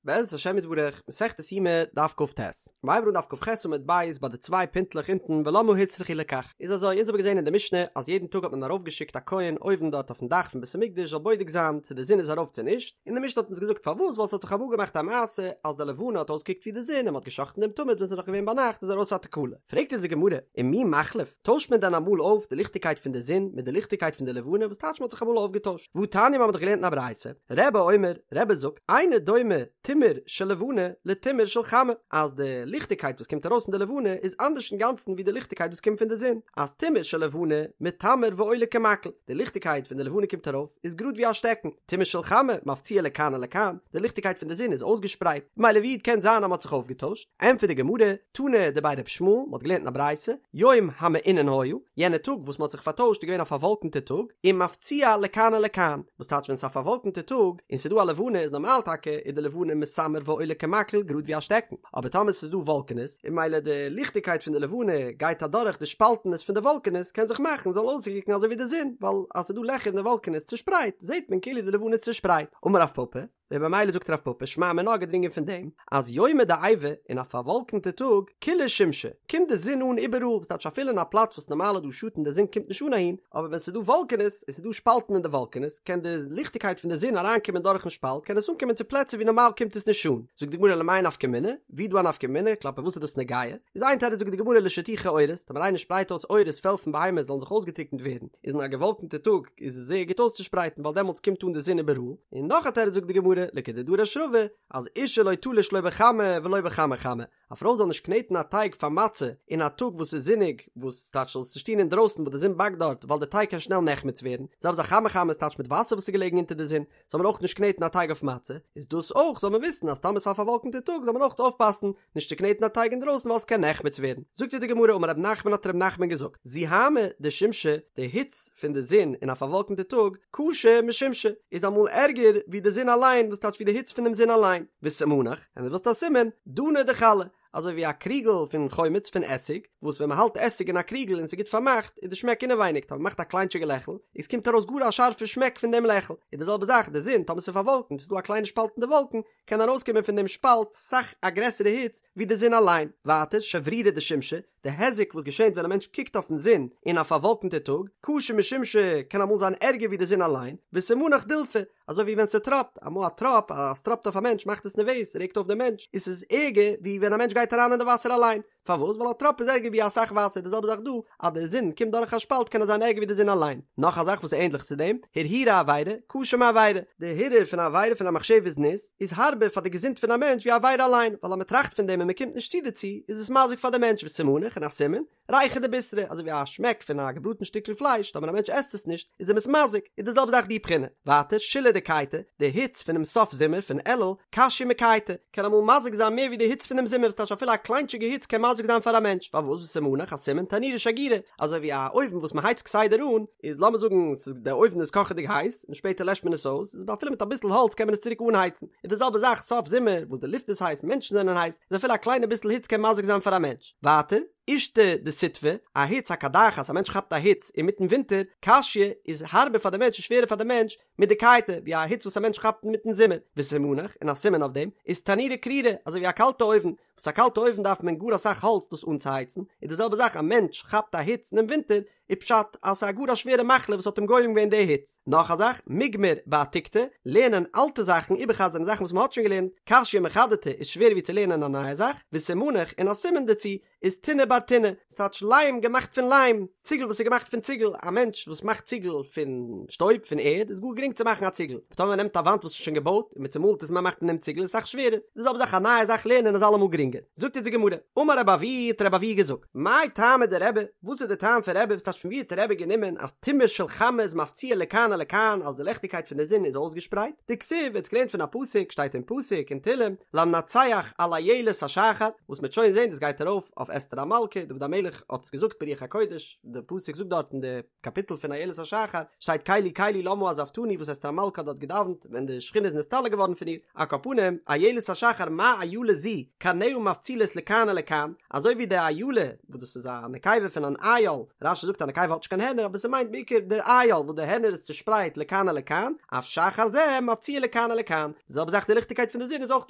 בעזרת השם יתברך, מסכת יומא, דף כ"ט. מ'הייבט אן דף כ"ח עמוד ב' ביי די צוויי פינטלעך אונטן ולמה הוצרכו לכך. איז אזוי, אונז האבן געזען אין די משנה אז יעדן טאג האט מען ארויפגעשיקט א כהן אויבן דארט אויפן דאך פון בית המקדש זאל בודק זיין צו די זון איז ארויף צו נישט, און די משנה האט אונז געזאגט פארוואס ווייל ס'האט זיך אמאל געמאכט א מעשה אז די לבנה האט אויסגעקוקט ווי די זון און מ'האט געשאכטן דעם תמיד ווען ס'איז נאך געווען ביינאכט איז ארויס א תקלה. פרעגט אונז די גמרא, ומי מחליף, טוישט מען דען אמאל אויף די ליכטיגקייט פון די זון מיט די ליכטיגקייט פון די לבנה וואס טייטש מ'האט זיך אמאל אויפגעטוישט? והתניא מ'האט דאך געלערנט אין א ברייתא, רבי אומר, רבי זאגט, אינו דומה תימור של לבנה לתימור של חמה, אז די ליכטיגקייט וואס קומט ארויס פון די לבנה איז אנדערש אינגאנצן ווי די ליכטיגקייט וואס קומט פון די זון, אז תימור של לבנה מיתמר ועולה כמקל, די ליכטיגקייט פון די לבנה קומט ארויף איז גראד ווי א שטעקן, תימור של חמה מפציע לכאן ולכאן, די ליכטיגקייט פון די זון איז אויסגעשפרייט, ממילא ווי קען זיין אז מ'האט זיך אויפגעטוישט? ענטפערט די גמרא, תנא דבי ר' ישמעאל, מ'האט געלערנט אין א ברייתא, יום המעונן היה, יענע טאג וואס מ'האט זיך פארטוישט איז געווען א פארוואלקענטע טאג, ומפציע לכאן ולכאן, וואס טייטש ווען ס'איז א פארוואלקענטע טאג און ס'איז דא א לבנה איז נארמאל טאקע איז די לבנה מיתמר ועולה כמקל גראד ווי א שטעקן, אבער טאמער ס'איז דא וואלקענעס און ממילא די ליכטיגקייט פון די לבנה גייט אדורך די שפאלטענעס פון די וואלקענעס קען זיך מאכן זאל אויסקוקן אזוי ווי די זון, ווייל אז ס'איז דא לעכער אין די וואלקענעס צושפרייט זעט מען כאילו די לבנה איז צושפרייט. אמר רב פפא. און במילא זאגט רב פפא שמע מינה געדרינגען פון דעם אז יומא דעיבא אין א פארוואלקענטע טאג כולא שמשא קומט די זון אן איבעראל וואס טייטש אפילו אין א פלאץ וואס נארמאל איז דא שאטן די זון קומט נישט אן אהין אבער ווען ס'איז דא וואלקענעס און ס'איז דא שפאלטן אין די וואלקענעס קען די ליכטיגקייט פון די זון אריינקומען דורכן שפאלט קען עס אנקומען צו פלעצער ווי נארמאל קומט עס נישט אן זאגט די גמרא למאי נפקא מינה ווי איז דא א נפקא מינה כלפי וואס איז דאס נוגע איז איין תירוץ זאגט די גמרא לשטוחי עורות טאמער איינער שפרייט אויס עורות פעל פון בהמות זאלן זיך אויסגעטריקנט ווערן איז אין א געוואלקענטע טאג איז עס זייער גוט אויסצושפרייטן ווייל דעמאלטס קומט אן די זון איבעראל, און נאך א תירוץ זאגט די גמרא, לכדדרש רבא, אז אשה לא תלוש לא בחמה ולא בחמי חמה, א פרוי זאל נישט קנעטן א טייג פאר מצה אין א טאג וואס איז זוניג, וואס טייטש זאל עס נישט טון אינדרויסן וואס די זון באקט דארט ווייל די טייג קען שנעל נחמץ ווערן, זעלבע זאך חמי חמה איז טייטש מיט וואסער וואס איז געלעגן אונטער די זון, זאל מען אויך נישט קנעטן א טייג אויף מצה, איז דאס אויך זאל מען וויסן אז טאמער ס'איז א פארוואלקענטע טאג זאל מען אויך אויפפאסן נישט צו קנעטן א טייג אינדרויסן ווייל ס'קען נחמץ ווערן. זאגט אונז די גמרא אמר רב נחמן האט רב נחמן געזאגט, זוהמא דשמשא, די היץ פון די זון אין א פארוואלקענטע טאג, קשה משומשא, איז אמאל ערגער ווי די זון אליין, וואס טייטש ווי די היץ פון דעם זון אליין, וסימנך, און דו ווילסט א סימן, דנא דחלא, אזוי ווי א קריגל פון חומץ פון עסיג, וואס ווען מ'האלט עסיג אין א קריגל און ס'איז גוט פארמאכט, איז די שמעק אינעווייניג, טאמער מ'מאכט א קליינטשיגע לעכל, איז קומט ארויס גאר א שארפע שמעק פון דעם לעכל, איז די זעלבע זאך די זון, טאמער ס'איז פארוואלקנט, ס'איז דא א קליינע שפאלט אין די וואלקן, קען ארויסקומען פון דעם שפאלט סאך א גרעסערע היץ ווי די זון אליין. ווייטער, שברירי דשמשא, די היזק וואס געשענט ווען א מענטש קוקט אויפן זון אין א פארוואלקנטע טאג, קשה משומשא, קען אמאל זיין ערגער ווי די זון אליין, וסימנך דילפא, אזוי ווי ווען ס'טראפט, אמאל א טראפ, אז ס'טראפט אויף א מענטש מאכט עס נערוועז, ס'רעגט אויף דעם מענטש, איז ס'איז ערגער ווי ווען א מענטש גייט אריין אין די וואסער אליין. פארוואס? ווייל א טראפ איז ערגער ווי אסאך וואסער, די זעלבע זאך דא, אז די זון קומט דורך א שפאלט קען עס זיין ערגער ווי די זון אליין. נאך א זאך וואס איז ענדליך צו דעם, הרהורי עבירה, קשה מעבירה. די הרהור פון א עבירה פון א מחשבת זנות, איז הארבער פאר די געזונט פון א מענטש ווי א עבירה אליין, ווייל אז מען טראכט פון דעם און מען קומט נישט צו דערצו, איז עס מזיק פאר די מענטש, וסימנך און א סימן, ריחא דבישרא, אזוי ווי א שמעק פון א געבראטן שטיקל פלייש, טאמער א מענטש עסט עס נישט, איז אים עס מזיק, איז די זעלבע זאך די בחינה. ווייטער, שילהי דקייטא, די היץ פונעם סוף זומער פון אלול, קשיא מקייטא, קען אמאל מזיק זיין מער ווי די היץ פונעם זומער, וואס טייטש אפילו א קליינטשיגע היץ קען מזיק זיין פאר א מענטש, פארוואס וסימנך א סימן תנורא שגירא, אזוי ווי א אויוון וואס מען הייצט כסדר אן, איז לאמיר זאגן ס'איז די אויוון איז קאכעדיג הייס, און שפעטער לעשט מען עס אויס, איז אפילו מיט אביסל האלץ קען מען עס צוריק אנהייצן, איז די זעלבע זאך סוף זומער וואס די לופט איז הייס, מענטשן זענען הייס, איז אפילו א קליינע ביסל היץ קען מזיק זיין פאר א מענטש. ווייטער, אישתא דסיתוא, א היץ א קדחת, א מענטש כאפט א היץ אינמיטן ווינטער, קשיא איז הארבער פאר די מענטש און שווערער פאר די מענטש, מדקייטא, ווי א היץ וואס א מענטש כאפט אינמיטן זומער, וסימנך, און א סימן אויף דעם, איז תנורא קרירא, אזוי ווי א קאלטע אויוון, וואס א קאלטע אויוון דארף מען גאר אסאך האלץ דאס אנצוהייצן, איז די זעלבע זאך א מענטש כאפט א היץ אינעם ווינטער, איז פשט אז ס'איז א גאר א שווערע מחלה וואס האט אים גורם געווען די היץ. נאך א זאך, מגמר בעתיקתא, לערנען אלטע זאכן, איבערחזר'ן זאכן וואס מ'האט שוין געלערנט, קשיא מחדתא איז שווערער ווי צו לערנען א נייע זאך, וסימנך, און א סימן דערצו, איז טינא בר טינא, ס'טייטש ליים געמאכט פון ליים, ציגל וואס איז געמאכט פון ציגל, א מענטש וואס מאכט ציגל פון שטויב, פון ערד, איז גאר גרינג צו מאכן א ציגל, אבער טאמער מ'נעמט א וואנט וואס איז שוין געבויט און מ'צומאלט עס און מ'מאכט פון דעם ציגל איז אסאך שווערער, די זעלבע זאך א נייע זאך לערנען איז אלעמאל גרינגער. זאגט אונז די גמרא, אמר רבי אבהו האט רבי אבהו געזאגט, מאי טעמא דרבי, וואס איז די טעם פון רבי, וואס טייטש פון ווי האט רבי גענומען אז תימור של חמה איז מפציע לכאן ולכאן אז די לעכטיגקייט פון די זון איז אויסגעשפרייט, דכתיב, ער האט געלערנט פון א פסוק, שטייט אין פסוק אין תהלים, למנצח על אילת השחר, וואס מ'וועט שוין זען דאס גייט ארויף אויף אסתר המלכה, דוד המלך האט עס געזאגט ברוח הקודש, די פסוק זאגט דארט אין די קאפיטל פון אילת השחר, שטייט קלי קלי למה עזבתני וואס אסתר המלכה האט דארט געדאווענט ווען די שכינה איז נסתלק געווארן פון איר, על כל פנים, אילת השחר מה איילה זו, קרניה. מפצילות לכאן ולכאן, אזוי ווי די אילה, וואס דאס איז א נקבה פון אן איל, רש"י זאגט א נקבה האט נישט קיין הערנער אבער ס'מיינט בעיקר דער איל וואס די הערנער איז צושפרייט לכאן ולכאן, אף שחר זה מפציע לכאן ולכאן, די זעלבע זאך די ליכטיגקייט פון די זון איז אויך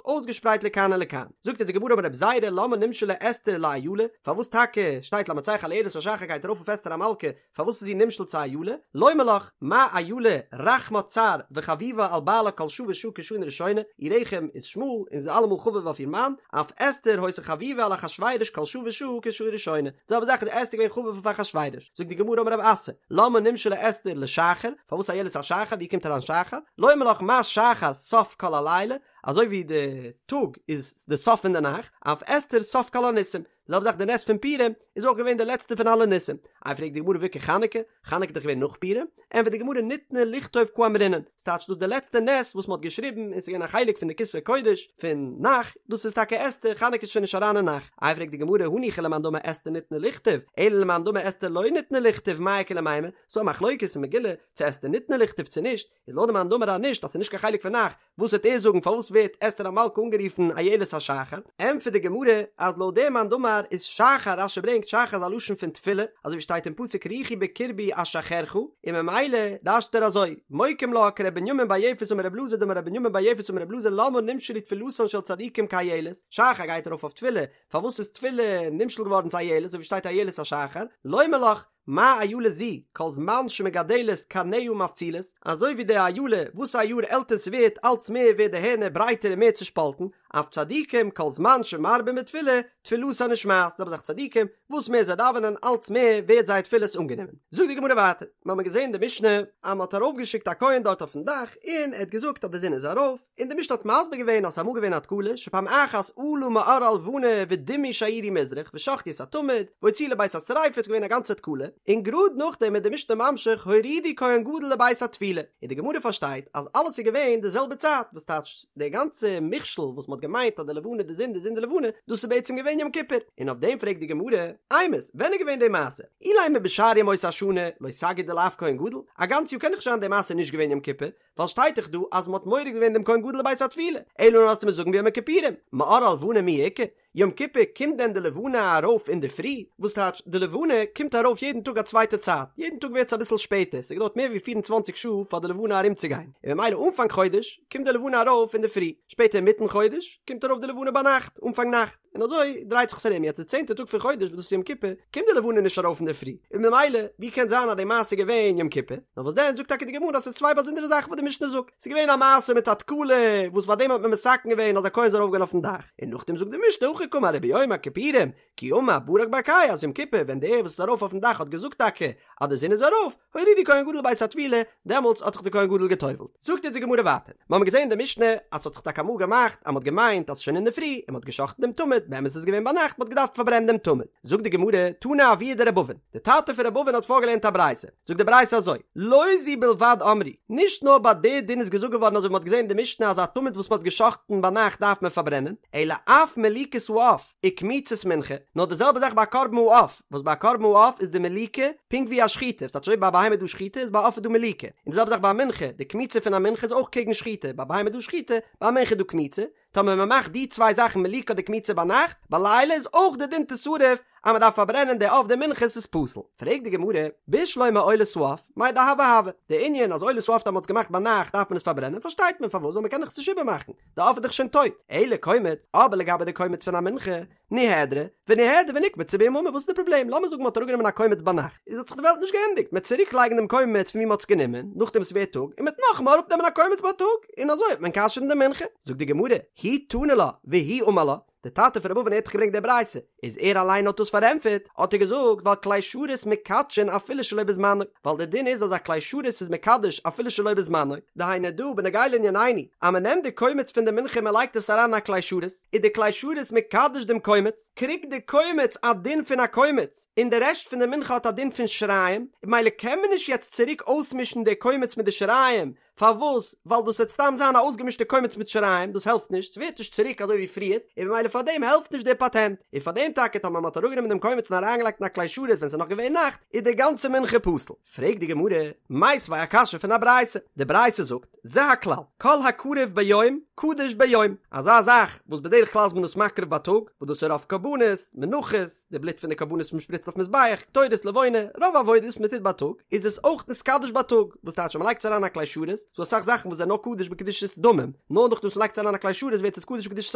אויסגעשפרייט לכאן ולכאן. זאגט אונז די גמרא אמר רבי זירא למה נמשלה אסתר לאילה, פארוואס טאקע שטייט למנצח על אילת השחר גייט ארויף אויף אסתר המלכה, פארוואס איז זי נמשל צו אילה? לומר לך, מה אילה רחמה צר וחביבה על בעלה כל שעה ושעה כשנה ראשונה, איר רחם איז שמאל און זי איז אלעמאל חביב אויף איר מאן, אף אסתר היתה חביבה על אחשורוש כל שעה ושעה כשעה ראשונה, די זעלבע זאך איז אסתר געווען חביב אויף אחשורוש. זאגט די גמרא אמר רב אסי, למה נמשלה אסתר לשחר, פארוואס איילת השחר, ווי קומט אריין שחר? לומר לך מה שחר סוף כל הלילה, אזוי ווי די טאג איז די סוף פון די נאכט, אף אסתר סוף כל הניסים, די זעלבע זאך די נס פון פורים איז אויך געווען די לעצטע פון אלע ניסים. איי פרעגט די גמרא והאיכא חנוכה? חנוכה איז דאך געווען נאך פורים? ענטפערט די גמרא ניתנה לכתוב קאמרינן, ס'טייטש דאס איז די לעצטע נס וואס מ'האט געשריבן און ס'איז געווען א חלק פון די כתבי קודש פון נ"ך, דאס איז טאקע אסתר, חנוכה איז שוין נישט אריין אין נ"ך. איי פרעגט די גמרא הניחא למאן דאמר אסתר ניתנה לכתוב, אלא למאן דאמר אסתר לא ניתנה לכתוב מאי איכא למימר, ס'דא א מחלוקת אין מגילה צו אסתר ניתנה לכתוב צו נישט, איז לויט די מאן דאמר אז נישט אז ס'איז נישט קיין חלק פון נ"ך, וואס וועט ער זאגן פארוואס ווערט אסתר המלכה אנגערופן איילת השחר? ענטפערט די גמרא אז לויט דעם מאן דאמר איז שחר, רש"י ברענגט שחר איז א לשון פון תפילה, אזוי ווי שטייט אין פסוק רוחי בקרבי אשחרך, און ממילא דרש'ט ער אזוי, מוקים לה כר' בנימין בר יפת אמר ר' אלעזר דאמר ר' בנימין בר יפת אמר ר' אלעזר למה נמשלו תפילתן של צדיקים כאיילת, שחר גייט ארויף אויף תפילה, פארוואס איז תפילה נמשל געווארן צו איילת אזוי ווי שטייט איילת השחר, לומר לך, מה אילה זו, כל זמן שמגדלת קרניה מפצילות, אזוי ווי די אילה, וואס א יאר עלטער ס'ווערט אלץ מער ווערט די הערנער ברייטער און מער צושפאלטן, אף צדיקים כל זמן שמרבין בתפילה, תפילתן נשמעת, זעלבע זאך צדיקים, וואס מער זיי דאווענען אלץ מער ווערט זייער תפילות אנגענומען. זאגט די גמרא ווייטער, מיר האבן געזען די משנה אז מ'האט ארויפגעשיקט א כהן דארט אויפן דאך און ער האט געזאגט אז די זון איז ארויף, און די משנה האט מסביר געווען אז ס'איז אמאל געווען א תקלה שפעם אחת עלה מאור הלבנה ודימו שעירי מזרח ושחטו את התמיד והוציאו לבית השריפה ס'איז געווען א גאנצע תקלה און גראד נאכדעם איז די משנה ממשיך הורידו כהן גדול לבית הטבילה און די גמרא פארשטייט אז אלעס איז געווען די זעלבע צייט וואס טייטש די גאנצע מכשול וואס מ'האט געמיינט אז די לבנה די זון די זון די לבנה דאס איז בעצם געווען יום כיפור און אויף דעם פרעגט די גמרא אימת ווען איז געווען די מעשה אילימא בשאר ימות השנה לא סגי דלאו כהן גדול א גאנץ יאר קען דאך נישט זיין די מעשה נישט געווען יום כיפור ווייל שטייט דאך דא אז מ'האט מוריד געווען דעם כהן גדול לבית הטבילה, אלא נאר וועסטו מיר זאגן ביום הכיפורים, מאור הלבנה מי איכא? יום כיפור קומט דען די לבנה ארויף אינדערפרי? וואס טייטש די לבנה קומט ארויף יעדן טאג א צווייטע צייט, יעדן טאג ווערט עס אביסל שפעטער, ס'געדויערט מער ווי פיר און צוואנציג שעה פאר די לבנה ארומצוגיין, און ממילא אנפאנג חודש קומט די לבנה ארויף אינדערפרי, שפעטער אינמיטן חודש קומט ארויף די לבנה ביינאכט, אנפאנג נאכט. און אזוי דרייט זיך עס ארום, יעצט די צענטע טאג פון חודש וואס דאס איז יום כיפור, קומט די לבנה נישט ארויף אינדערפרי, און ממילא ווי קען זיין אז די מעשה איז געווען יום כיפור, נאר וואס דען זאגט טאקע די גמרא אז ס'איז צוויי באזונדערע זאכן וואס די משנה זאגט, ס'איז געווען א מעשה מיט א תקלה וואס פאר דעם האט מען מתקן געווען אז א כהן זאל ארויפגיין אויפן דאך, און נאכדעם זאגט די משנה הכי קאמר וביום הכיפורים כי אמר ברק ברקאי אז יום כיפור ווען דער וואס איז ארויף אויפן דאך האט געזאגט טאקע אז די זון איז ארויף, הורידו כהן גדול לבית הטבילה, דעמאלטס האט זיך דער כהן גדול גע'טובל'ט. זאגט אונז די גמרא ווייטער, מיר האבן געזען אין די משנה אז ס'האט זיך טאקע אמאל געמאכט אז מ'האט געמיינט אז ס'איז שוין אינדערפרי און מ'האט גע'שחט'ן דעם תמיד, באמת איז עס געווען ביינאכט, מ'האט געדארפט פארברענען דעם תמיד. זאגט די גמרא, תנא אבוה דר' אבין, די טאטע פון ר' אבין האט פארגעלערנט א ברייתא, זאגט די ברייתא אזוי, לא זו בלבד אמרו, נישט נאר ביי די דין איז געזאגט געווארן אזוי ווי מ'האט געזען אין די משנה אז א תמיד וואס מ'האט גע'שחט'ן ביינאכט דארף מען פארברענען, אלא אף מליקת העוף, וקמיצת מנחה, נאר די זעלבע זאך ביי א קרבן העוף, וואס ביי א קרבן העוף איז די מליקה פונקט ווי א שחיטה, ס'טייטש אויב ביי א בהמה איז דא שחיטה איז ביי א עוף איז דא מליקה, און די זעלבע זאך ביי א מנחה, די קמיצה פון א מנחה איז אויך קעגן שחיטה, ביי א בהמה איז דא שחיטה, ביי א מנחה איז דא קמיצה, טאמער מען מאכט די צוויי זאכן מליקה אדער קמיצה ביינאכט, בלילה איז אויך די דין תשרף אז מען דארף פארברענען די עוף די מנחה ס'איז פסול. פרעגט די גמרא, בשלמא עולת העוף, מאי דהוה הוה, די ענין אז עולת העוף טאמער מ'האט עס געמאכט ביינאכט דארף מען עס פארברענען פארשטייט מען פארוואס ווייל מען קען דאך עס נישט איבערמאכן, די עוף איז דאך שוין טויט, אלא קומץ, אבער לגבי די קומץ פון א מנחה, ניהדרה, וניהדר ונקמצה ביממא, וואס איז די פראבלעם? לאמיר זאגן מ'האט אראפגענומען א קומץ ביינאכט, איז האט זיך די וועלט נישט געענדיגט, מ'עט צוריק לייגן דעם קומץ פון ווי מ'האט עס גענומען, נאכדעם וואס ס'ווערט טאג, און מ'עט נאכאמאל אראפנעמען א קומץ בייטאג, און אזוי וועט מען כשר'ן די מנחה. זאגט די גמרא, הוא תני לה, והוא אמר לה, די טאטע פון ר' אבין האט דאך געברענגט די ברייתא, איז ער אליין האט דאס פארענטפערט, האט ער געזאגט ווייל כלי שרת מקדשין אפילו שלא בזמנו, ווייל די דין איז אז א כלי שרת איז מקדש אפילו שלא בזמנו, דהיינו דא בנוגע לענינינו, אז מען נעמט די קומץ פון די מנחה און מען לייגט עס אריין אין א כלי שרת, איז די כלי שרת מקדש דעם קומץ, קריגט די קומץ א דין פון א קומץ, און די רעשט פון די מנחה האט א דין פון שיריים, ממילא קען מען נישט יעצט צוריק אויסמישן די קומץ מיט די שיריים, פארוואס? ווייל דאס וועט סתם זיין א אויסגעמישטע קומץ מיט שיריים, דאס העלפט נישט, ס'ווערט נישט צוריק אזוי ווי פריערט, און ממילא פאר דעם העלפט נישט דער פאטענט, און פאר דעם טאקע טאמער מ'האט אראפגענומען דעם קומץ און אריינגעלייגט אין א כלי שרת ווען ס'איז נאך געווען נאכט, איז די גאנצע מנחה פסול. פרעגט די גמרא, מיתיבי א קשיא פון א ברייתא, די ברייתא זאגט, זה הכלל, כל הקרב ביום, קדוש ביום, אזא זאך וואס בדרך כלל איז מען דאס מקריב בייטאג, וואס דאס איז רוב קרבנות, מנחות, די בלוט פון די קרבנות וואס מען שפריצט אויף מזבח, קטורת, לבונה, רוב עבודות וואס מען טוט בייטאג, איז עס אויך נתקדש בייטאג, וואס טייטש אז מען לייגט עס אריין אין א כלי שרת, ס'דא אסאך זאכן וואס זענען נאר קדוש בקדושת דמים, נאר נאכדעם וואס מען לייגט עס אריין אין א כלי שרת ווערט עס קדוש בקדושת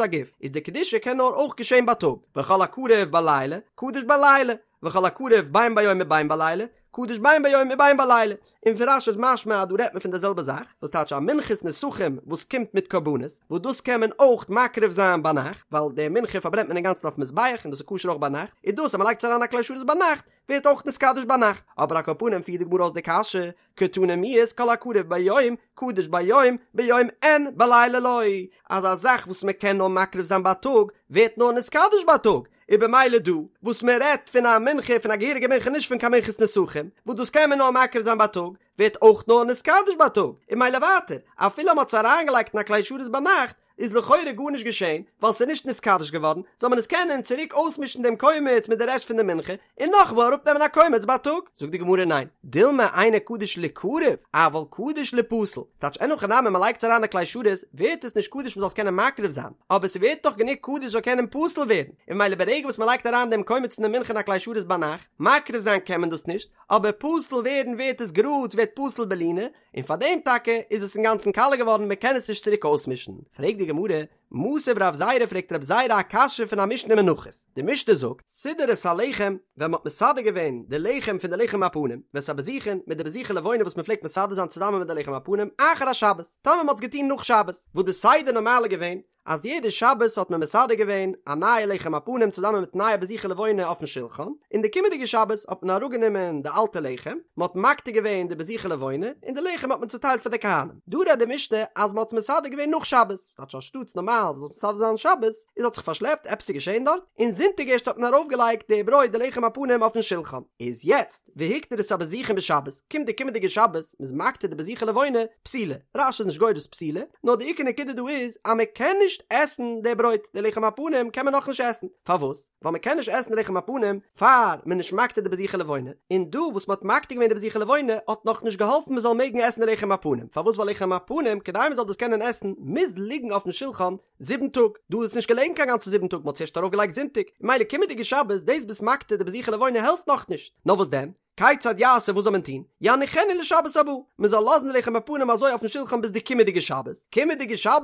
הגוף, איז די קדושה קען נאר אויך געשען בייטאג, וכל הקרב בלילה, קדוש בלילה, וכל הקרב בין ביום ובין בלילה, קדוש בין ביום ובין בלילה, און פון רש"י איז משמע אז דא רעדט מען פון די זעלבע זאך, וואס טייטש א מנחת נסכים וואס קומט מיט קרבנות, וואס דאס קען מען אויך מקריב זיין ביינאכט, ווייל די מנחה פארברענט מען אינגאנצן אויפן מזבח און דאס איז כשר אויך ביינאכט, איז דאס אז מען לייגט עס אריין א כלי שרת ביינאכט, ווערט אויך נתקדש ביינאכט, אבער על כל פנים פירט די גמרא אויס די קשיא, קתני מיהת כל הקרב ביום, קדוש ביום, ביום אין בלילה לא, אז א זאך וואס מען קען נאר מקריב זיין בייטאג, ווערט נאר נתקדש בייטאג, איז במילא דא וואס מען רעדט פון א מנחה פון א געהעריגע מנחה נישט פון קיין מנחת נסכים וואס דאס קען מען נאר מקריב זיין בייטאג ווערט אויך נאר נתקדש בייטאג און ממילא ווייטער אפילו מען האט עס אריינגעלייגט אין א כלי שרת ביינאכט איז לכאורה גארנישט געשען ווייל ס'איז נישט נתקדש געווארן זאל מען עס קענען צוריק אויסמישן דעם קומץ מיט די רעשט פון די מנחה און נאכאמאל אראפנעמען א קומץ בייטאג. זאגט די גמרא ניין, דילמא אינו קדוש ליקרב, אבל קדוש ליפסל, טייטש אין הכי נמי מען לייגט עס אריין אין כלי שרת ווערט עס נישט קדוש מען זאל עס קענען מקריב זיין, אבער ס'ווערט דאך גענוג קדוש זאל קענען פסול ווערן, און ממילא ברגע וואס מען לייגט אריין דעם קומץ אין די מנחה אין א כלי שרת ביינאכט, מקריב זיין קען מען דאס נישט, אבער פסול ווערן ווערט עס גראד, ס'ווערט פסול בלינה, און פארדעם טאקע איז עס אינגאנצן קאלע געווארן מען קען עס נישט צוריק אויסמישן. פרעגט די גמרא, מתיב רב זירא פרעגט רב זירא א קשיא פון א משנה אין מנחות, די משנה זאגט, סידר את הלחם, ווען מ'האט מסדר געווען די לחם פון די לחם הפנים, ואת הבזיכין, מיט די בזיכי לבונה וואס מ'פלעגט מסדר זיין צוזאמען מיט די לחם הפנים, אחר השבת, טאמער מ'האט עס געטון נאך שבת, וואס די סדר נארמאל איז געווען, אז יעדע שבת האט מען מסדר געווען א נייע לחם הפנים צוזאמען מיט נייע בזיכי לבונה אויפן שולחן, און די קומענדיגע שבת האט מען אראפגענומען די אלטע לחם, מ'האט מקטיר געווען די בזיכי לבונה, און די לחם האט מען צוטיילט פאר די כהנים. דא רעדט די משנה אז מ'האט עס מסדר געווען נאך שבת. טייטש אנשטאטס נארמאל זאל מסדר זיין שבת, איז האט זיך פארשלעפט, עפעס איז געשען דארט, און זונטאג ערשט האט מען ארויפגעלייגט די ברויט די לחם הפנים אויפן שולחן, איז יעצט והקטיר את הבזיכין בשבת, קומט די קומענדיגע שבת, מ'איז מקטיר די בזיכי לבונה, פסולה, רש"י איז נישט גורס פסולה, נאר די עיקר נקודה דא איז אז מען קען נישט עסן די ברויט, די לחם הפנים קען מען נאכנישט עסן, פארוואס? ווייל מען קען נישט עסן די לחם הפנים פאר מען נישט מקטיר די בזיכי לבונה, און דא וואס מען האט מקטיר געווען די בזיכי לבונה האט נאך נישט געהאלפן מען זאל מעגן עסן די לחם הפנים, פארוואס ווייל לחם הפנים כדי מען זאל דאס קענען עסן מוז ליגן אויפן שולחן זיבן טאג, דא איז עס נישט געלעגן קיין גאנצע זיבן טאג מען האט עס ערשט ארויף געלייגט זונטאג, ממילא קומענדיגע שבת דאס ביסט מקטיר די בזיכי לבונה העלפט נאכנישט, נאר וואס דען? כיצד יעשה וואס זאל מען טון? יניחנו לשבת הבאה, מען זאל לאזן די לחם הפנים אזוי אויפן שולחן ביז די קומענדיגע שבת, קומענדיגע שבת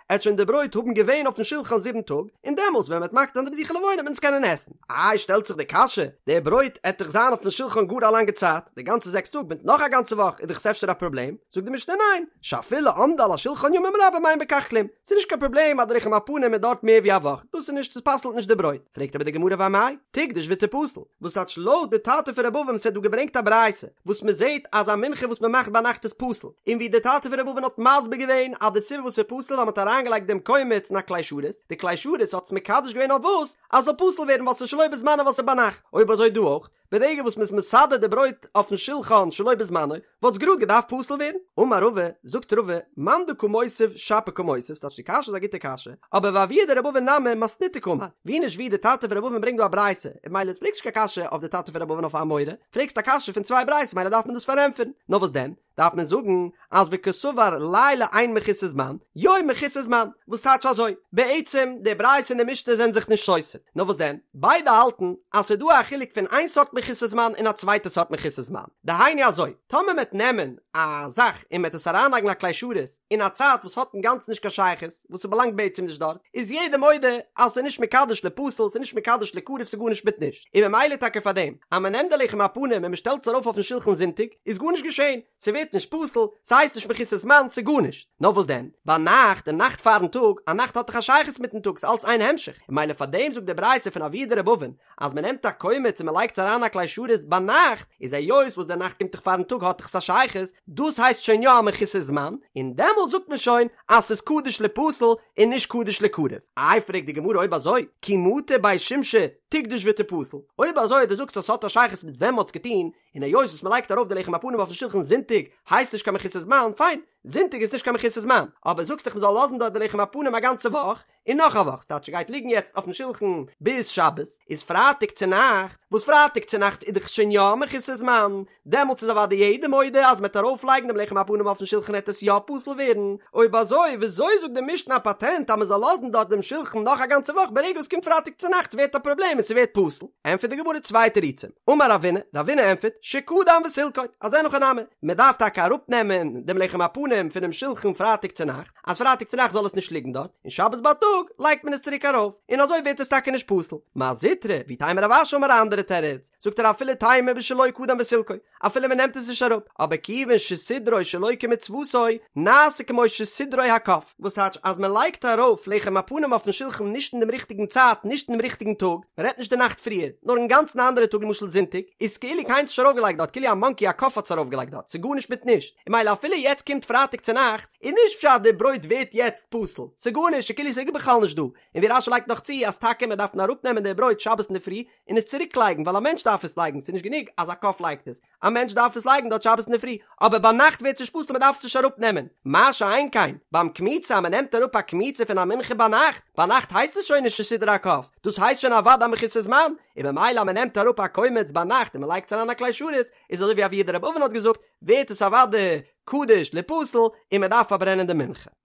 עט שוין די ברויט האבן געווען אויפן שולחן זיבן טאג, און דעמאלס ווען מען וועט מקטיר זיין די בזיכי לבונה וועט מען עס קענען עסן. איי שטעלט זיך די קשיא, די ברויט עט דאך זיין אויפן שולחן גאר א לאנגע צייט, די גאנצע זעקס טאג מיט נאך א גאנצע וואך איז דאך עס אפשר א פראבלעם, זאגט די משנה ניין, שאפילו עמדה על השולחן ימים רבים אין בכך כלום, ס'איז נישט קיין פראבלעם אז די לחם הפנים איז דארט מער ווי א וואך, דאס איז נישט, עס פסל'ט נישט די ברויט, פרעגט אבער די גמרא ואמאי, תקדוש ותפסל, וואס טייטש לויט די טאטע פון ר' אבין וואס האט דא געברענגט א ברייתא וואס מען זעט אז א מנחה וואס מען מאכט ביינאכט איז פסול, און ווי די טאטע פון ר' אבין האט מסביר געווען אז די סיבה וואס ס'איז פסול ווייל מען האט אריינגעלייגט דעם קומץ אין א כלי שרת, די כלי שרת האט עס מקדש געווען אויף וואס? אז ס'זאל פסול ווערן ווייל ס'איז שלא בזמנו ווייל ס'איז ביינאכט, אויב אזוי דא אויך, ברגע וואס מ'איז מסדר די ברויט אויפן שולחן שלא בזמנו, וואלט עס גראד געדארפט פסול ווערן. אמר רבא, זאגט רבא, מאן דקא מותיב שפיר קא מותיב, ס'טייטש די קשיא איז א גוטע קשיא, אבער ואבוה דרבי אבין נמי מתניתא קאמר, ווי נישט ווי די טאטע פון רבי אבין ברענגט דא א ברייתא, און ממילא פרעגסט נישט קיין קשיא אויף די טאטע פון רבי אבין אויף א אמורא, פרעגסט א קשיא פון צוויי ברייתות ממילא דארף מען דאס פארענטפערן, נאר וואס דען? דארף מען זאגן אז וקסבר לילה אין מחוסר זמן, יום מחוסר זמן, וואס טייטש אזוי? בעצם די ברייתא און די משנה זענען זיך נישט סותר, נאר וואס דען? ביידע האלטן אז ס'איז דא א חילוק פון איין סארט מחוסר זמן און א צווייטע סארט מחוסר זמן, דהיינו אזוי, טאמער מ'עט נעמען א זאך און מ'עט עס אריינלייגן אין א כלי שרת אין א צייט וואס האט אינגאנצן נישט קיין שייכות, וואס ס'באלאנגט בעצם נישט דארט, איז יעדער מודה אז ס'איז נישט מקדש לפסול, ס'איז נישט מקדש לקרב, ס'איז גארנישט מיט נישט. און ממילא טאקע פאר דעם אז מ'נעמט די לחם הפנים און מ'שטעלט עס ארויף אויפן שולחן זונטאג, איז גארנישט געשען, ס'ווערט נישט פסול, ס'הייסט נישט מחוסר זמן, ס'איז גארנישט. נאר וואס דען? ביינאכט, די נאכט פארן טאג, א נאכט האט דאך א שייכות מיטן טאג, ס'איז אלץ איין המשך, און ממילא פאר דעם זאגט די ברייתא פון אבוה דרבי אבין, אז מ'נעמט א קומץ און מ'לייגט עס אריין אין א כלי שרת ביינאכט, איז היות וואס די נאכט קומט דאך פארן טאג האט דאך עס א שייכות, דאס הייסט שוין יא א מחוסר זמן, און דעמאלט זאגט מען שוין אז ס'איז קדוש ליפסל און נישט קדוש ליקרב. איי פרעגט די גמרא אויב אזוי, כי מטו בי שמשי תקדוש ותפסל, אויב אזוי דו זאגסט אז ס'האט א שייכות מיט ווען מ'האט עס געטון, און היות וואס מ'לייגט ארויף די לחם הפנים אויפן שולחן זונטאג הייסט נישט קיין מחוסר זמן, פיין, זונטאג איז נישט קיין מחוסר זמן, אבער זאגסט דאך מ'זאל לאזן דארט די לחם הפנים א גאנצע וואך, און נאך א וואך, ס'טייטש ס'גייט ליגן יעצט אויפן שולחן ביז שבת, איז פרייטאג צונאכטס, וואס פרייטאג צונאכטס איז דאך שוין יא מחוסר זמן, דעמאלטס איז אוודאי יעדער מודה אז מ'עט ארויפלייגן דעם לחם הפנים אויפן שולחן עט עס יא פסול ווערן, אויב אזוי וויאזוי זאגט די משנה א פאטענט אז מ'זאל לאזן דארט דעם שולחן נאך א גאנצע וואך ברגע וואס קומט פרייטאג צונאכטס ווערט א פראבלעם און ס'ווערט פסול? ענטפערט די גמרא צוויי תירוצים, אמר רבינא, רבינא ענטפערט, שקדם וסילקו, אז אין הכי נמי, מ'דארף טאקע אראפנעמען דעם לחם הפנים פונעם שולחן פרייטאג צונאכטס, אז פרייטאג צונאכטס זאל עס נישט ליגן דארט, און שבת בייטאג לייגט מען עס צוריק ארויף, און אזוי ווערט עס טאקע נישט פסול. מר זוטרא, ואיתימא רב אשי אמר א אנדערע תירוץ, זאגט ער אפילו תימא בשלא קדם וסילקו, אפילו מען נעמט עס נישט אראפ, אבער כיוון שסידרו שלא כמצוותו, נעשה כמו שסידרו הקוף, וואס טייטש אז מען לייגט ארויף לחם הפנים אויפן שולחן נישט אין דעם ריכטיגן צייט, נישט אין דעם ריכטיגן טאג, מען רעדט נישט די נאכט פריער, נאר אינגאנצן א אנדערע טאג למשל זונטאג, איז כאילו קיינער האט עס נישט ארויפגעלייגט דארט, כאילו א מאנקי א קוף האט עס ארויפגעלייגט דארט, ס'איז גארנישט מיט נישט, און ממילא אפילו יעצט קומט פרייטאג צונאכטס, איז נישט פשט די ברויט ווערט יעצט פסול, ס'איז גארנישט, ס'איז כאילו ס'איז בכלל נישט דא, און ווי רש"י לייגט נאך צו אז טאקע מען דארף אראפנעמען די ברויט שבת אינדערפרי און עס צוריק לייגן ווייל א מענטש דארף עס לייגן, ס'איז נישט גענוג אז א קוף לייגט עס, א מענטש דארף עס לייגן דארט שבת אינדערפרי, אבער ביינאכט ווערט עס נישט פסול מען דארף עס נישט אראפנעמען, מה שאין כן ביים קמיצה אז מען נעמט אראפ א קמיצה פון א מנחה ביינאכט, ביינאכט הייסט עס שוין נישט שסידרה הקוף, דאס הייסט שוין אוודאי מחוסר זמן, און ממילא אז מען נעמט אראפ א קומץ ביינאכט און מען לייגט עס אריין א כלי שרת, איז אזוי ווי אבוה דרבי אבן האט געזאגט, ווערט עס אוודאי קדוש ליפסל און מען דארף פארברענען די מנחה.